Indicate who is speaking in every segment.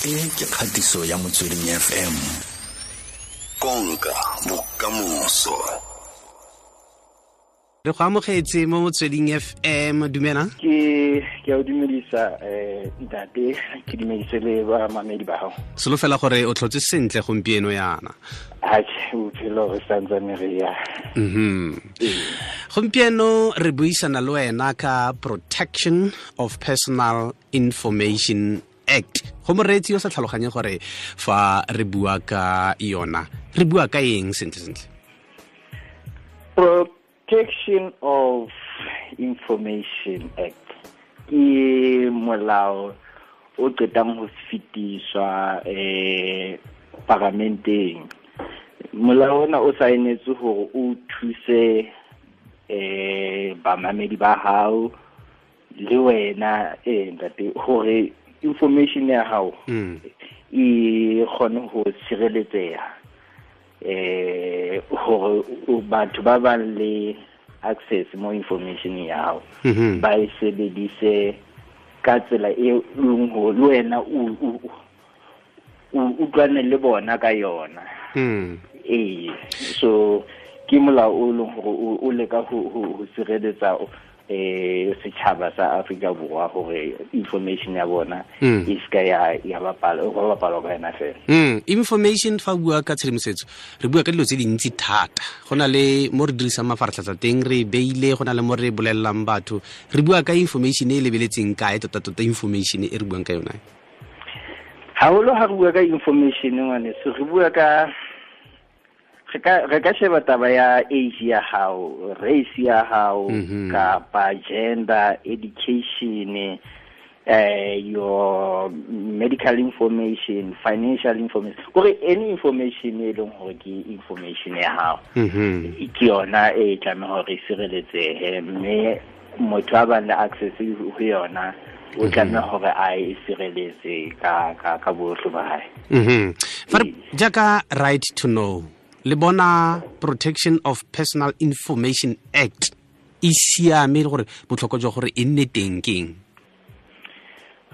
Speaker 1: E ke kgatiso ya Motsweding FM. Konka bokamoso.
Speaker 2: Re go amogetse mo Motsweding FM, dumela.
Speaker 3: Ke a o dumedisa ntate, ke dumedise le ba mamedi ba gago.
Speaker 2: Solofela gore o tlhotse sentle gompieno yana.
Speaker 3: Atjhe, bophelo re santsane re ya.
Speaker 2: Gompieno re buisana le wena ka Protection of Personal Information Act. Go moreetsi yo sa tlhaloganye gore fa re bua ka yona, re bua ka eng sentle sentle?
Speaker 3: Protection of Information Act ke molao o qetang ho fetiswa paramenteng. Molao ona o saenetswe hore o thuse bamamedi ba hao le wena ntate hore information ya hao e kgone ho sireletseha, hore batho ba bang le access mo information ya hao ba e sebedise ka tsela e leng hore le wena o utlwane le bona ka yona. So ke molao o leng hore o leka ho sireletsa setjhaba sa Afrika Borwa hore information ya bona e ska ya bapalwa ka yona fela.
Speaker 2: Information fa bua ka tshedimosetso re bua ka dilo tse dintsi thata. Go na le mo re dirisang mafaratlhatlha teng, re beile, go na le mo re bolellang batho. Re bua ka information e lebeletseng kae tota tota information e re buang ka yona?
Speaker 3: Haholo ha re bua ka information ngwaneso, re bua ka re ka sheba taba ya age ya hao, race ya hao, kapa gender, education, your medical information, financial information, kore any information e leng hore ke information ya hao. Ke yona e tlameha hore e sireletsehe, mme motho a bang le access ho yona o tlameha hore a e sireletse ka bohle ba hae.
Speaker 2: Fa jaaka right to know, le bona Protection of Personal Information Act e siame le gore botlhokwa jwa gore e nne teng keng?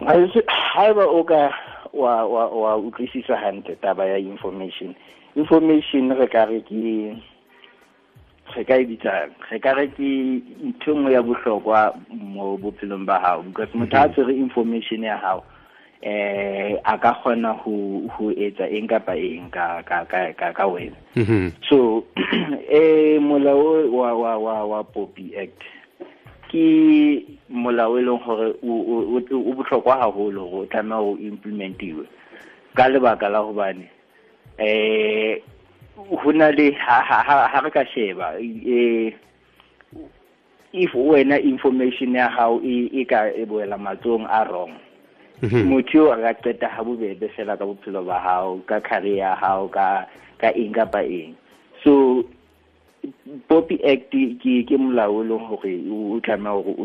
Speaker 3: Haeba o ka wa utlwisisa hantle taba ya information re ka re ke re ka e bitsang, re ka re ke ntho nngwe ya bohlokwa mo bophelong ba hao, because motho a tshwere information ya hao a ka kgona ho etsa eng kapa eng ka wena. So molao wa POPI Act ke molao e leng hore o bohlokwa haholo hore o tlameha ho implementiwe ka lebaka la hobane ho na le ha re ka sheba if wena information ya hao e ka e boela matsohong a wrong, motho a ka qeta ha bobebe fela ka bophelo ba hao, ka career ya hao, ka eng kapa eng. So POPI Act ke molao o leng hore o tlameha hore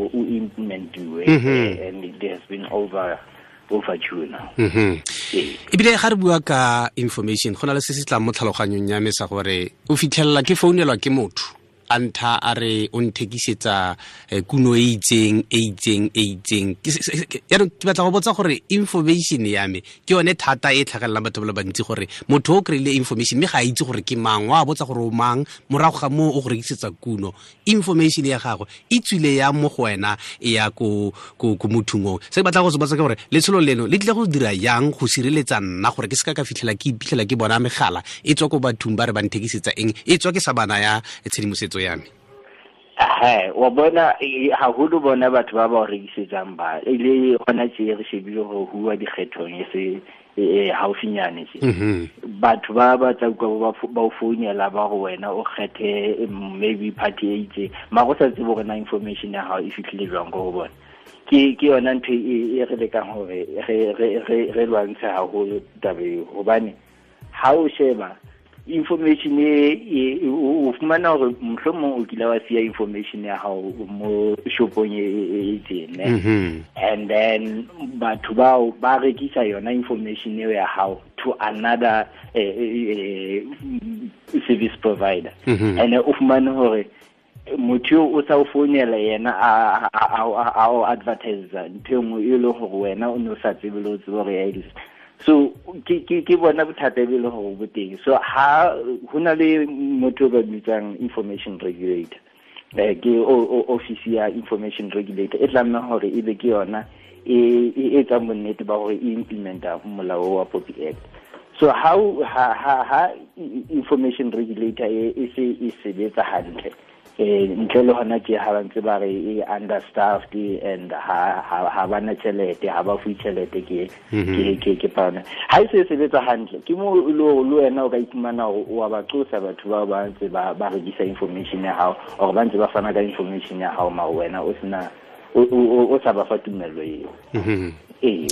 Speaker 3: o implementiwe, and it has been overdue now.
Speaker 2: Ebile ga re bua ka information, go na le se se tlang mo tlhaloganyong ya me sa gore o fitlhelela ke founelwa ke motho a ntha a re o nthekisetsa kuno e itseng e itseng e itseng. Yaanong ke batla go botsa gore information ya me ke yone thata e tlhagelelang batho ba le bantsi, gore motho o kry-ile information mme ga a itse gore ke mang, wa botsa gore o mang, morago ga moo o go rekisetsa kuno. Information ya gagwe e tswile ya mo go wena e ya ko mothong oo. Se ke batla go se botsa ke gore letsholo leno le tlile go dira yang go sireletsa nna gore ke seka ka fitlhela ke iphitlhela ke bona megala e tswa ko bathong ba re ba nthekisetsa eng, e tswa ke sa bana ya tshedimosetso ya me?
Speaker 3: Wa bona haholo bona batho ba ba rekisetsang ba ile hona tje re shebile hore huwa dikgethong e se haufinyane tje. Batho ba ba tla utlwa ba o founela ba go wena o kgethe maybe party e itseng, mara o sa tsebe hore na information ya hao e fihlile jwang ko ho bona. Ke yona ntho e re lekang hore re lwantshe haholo taba eo, hobane ha o sheba information e o fumana hore mohlomong o kile wa siya information ya hao mo shopong e itseng, and then batho bao ba rekisa yona information eo ya hao to another service provider, and o fumane hore Motho o sa o founela yena a o advertise ntho e nngwe e leng gore wena o ne o sa tsebe le o tsebe gore ya exist. So ke bona bothata be le gore bo teng. So ha ho na le motho ba bitsang information regulator, ke office ya information regulator e tlameha hore e be ke yona e etsang bonnete ba hore e implementa molao wa POPI Act. So how ha information regulator e se e sebetsa hantle, ntle le hona tje ha ba ntse ba re e understaffed and ha ba na tjhelete, ha ba fuwe tjhelete ke pana. Ha e se sebetsa hantle ke mo le wena o ka iphumana hore wa ba qosa batho bao ba ntse ba rekisa information ya hao or ba ntse ba fana ka information ya hao, mara wena o sena o sa ba fa tumello eo. E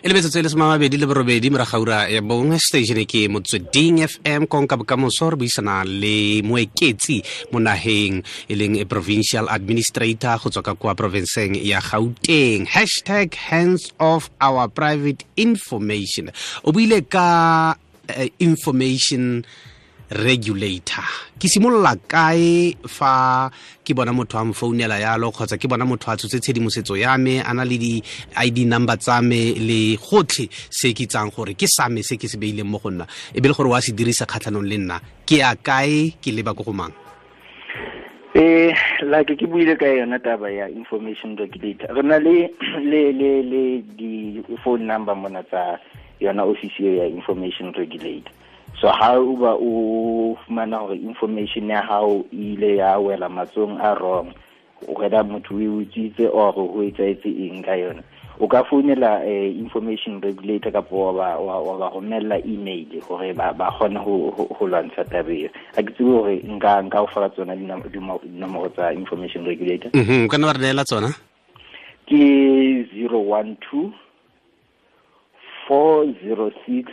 Speaker 2: le metsotso e le 28 morago ga ura ya bongwe, station ke Motsweding FM, konka bokamoso. Re buisana le Moeketsi mo naheng e leng provincial administrator go tswa ka kwa provinceng ya Gauteng. Hashtag hands off our private information. O buile ka information regulator. Ke simolola kae fa ke bona motho a mfounela yalo, kgotsa ke bona motho a tshotse tshedimosetso ya me, a na le di-ID number tsa me le gotlhe se ke itsang gore ke sa me se ke se beileng mo go nna, e be le gore wa se dirisa kgatlhanong le nna, ke ya kae, ke leba ko go mang?
Speaker 3: Like ke buile ka yona taba ya information regulator, re na le le di-phone number mona tsa yona office ya information regulator. So ha o ba o fumana hore information ya hao ile ya wela matsong a wrong, whether motho o utswitse or ho etsahetse eng ka yona, o ka founela information regulator kapa wa ba romella email hore ba kgone ho lwantsha taba eo. Ha ke tsebe hore nka o fa tsona dinomoro tsa information regulator.
Speaker 2: O ka nna wa re neela tsona?
Speaker 3: Ke 012 406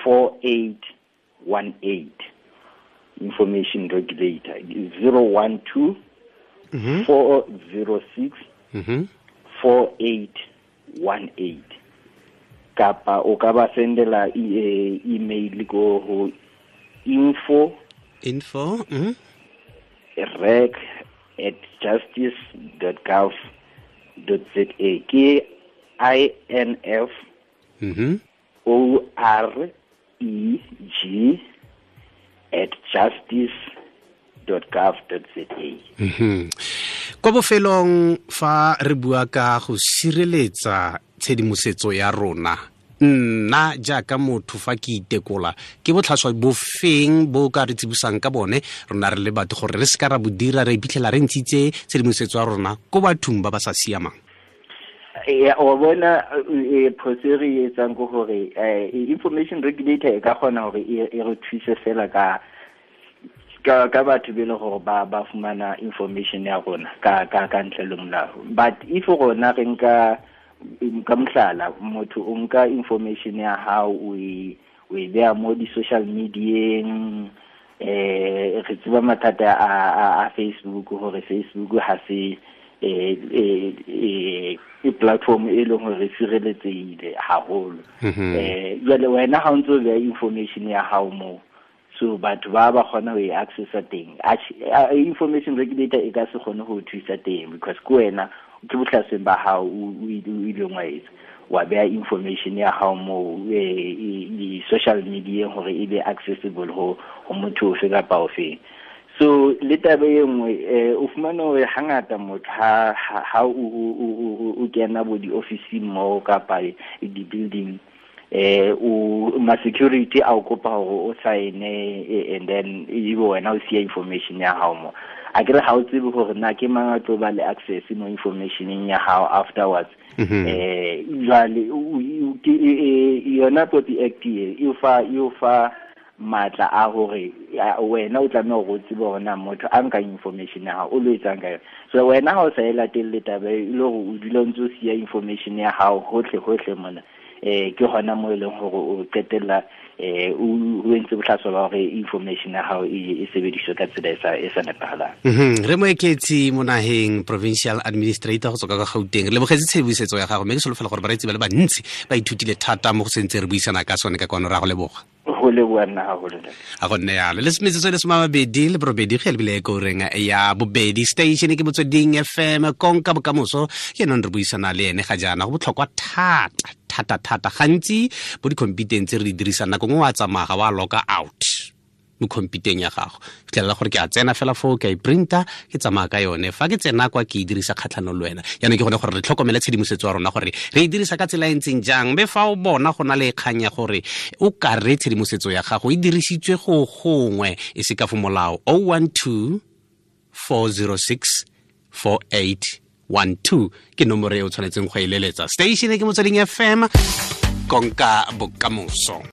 Speaker 3: 4818. Information regulator 012 406 4818. Kapa o ka ba sendela email ko ho info reg@justice.gov.za. Ke INF OR EG @justice.gov.za.
Speaker 2: Kwa bofelong fa re bua ka go sireletsa tshedimosetso ya rona, nna jaaka motho fa ke itekola, ke botlhaswa bofeng bo ka re tsibosang ka bone rona re le batho gore re se ka ra bo dira re iphitlhela re ntshitse tshedimosetso ya rona ko bathong ba ba sa siamang?
Speaker 3: O bona phoso e re etsang ke hore information regulator e ka kgona hore e re thuse fela ka batho be le gore ba fumana information ya rona ka ntle le molao. But if rona re nka ka mohlala, motho o nka information ya hao o e beha mo di-social medieng, re tseba mathata a Facebook, hore Facebook ha se e platform e leng hore sireletsehile haholo. Jwale wena ha o ntso beha information ya hao moo, so batho ba kgona ho e accessa teng. Information regulator e ka se kgone ho thusa teng because ke wena ke bohlasweng ba hao o ileng wa etsa, wa beha information ya hao moo di-social media hore e be accessible ho motho ofe kapa ofeng. So le taba e nngwe, o fumana hore hangata motho ha o kena bo di-officing moo kapa di-building, o ma security a o kopa hore o sign, and then ebe wena o siya information ya hao mo. A ke re ha o tsebe hore na ke mang a tlo ba le access mo informationeng ya hao afterwards. Jwale yona POPI Act e fa matla a hore wena o tlameha hore o tsebe hore na motho a nka information ya hao o lo etsang ka yona. So wena ha o sa e latelle taba e le hore o dula o ntso siya information ya hao hohle mona, ke hona mo e leng hore o qetella o entse bohlaswa ba hore information ya hao e sebediswe ka tsela e sa nepahalang.
Speaker 2: Re Moeketsi mo naheng, provincial administrator go tswa ka Gauteng, re lebogetse tshedimosetso ya gago, mme ke solofela gore bareetsi ba le bantsi ba ithutile thata mo go sentse re buisana ka sone ka kwano. Ra go leboga.
Speaker 3: Go leboa nna haholo.
Speaker 2: A go nne yalo. Le metsotso e le 28 ge lebile ko reng ya bobedi. Station ke Motsweding FM, konka bokamoso. Ke nong re buisana le ene ga jaana, go botlhokwa thata thata thata. Gantsi bo di-computeng tse re di dirisang, nako nngwe wa tsamaya ga wa loka out mo computeng ya gago, fitlhelela gore ke a tsena fela foo, ke a e printa, ke tsamaya ka yone. Fa ke tsena kwa, ke e dirisa kgatlhanong le wena. Jaanong ke gone gore re tlhokomele tshedimosetso ya rona, gore re e dirisa ka tsela e ntseng jang. Mme fa o bona go na le kgang ya gore o ka re tshedimosetso ya gago e dirisitswe go gongwe e se ka fo molao, 012 406 4812 ke nomoro e o tshwanetseng go e leletsa. Station ke Motsweding FM, konka bokamoso.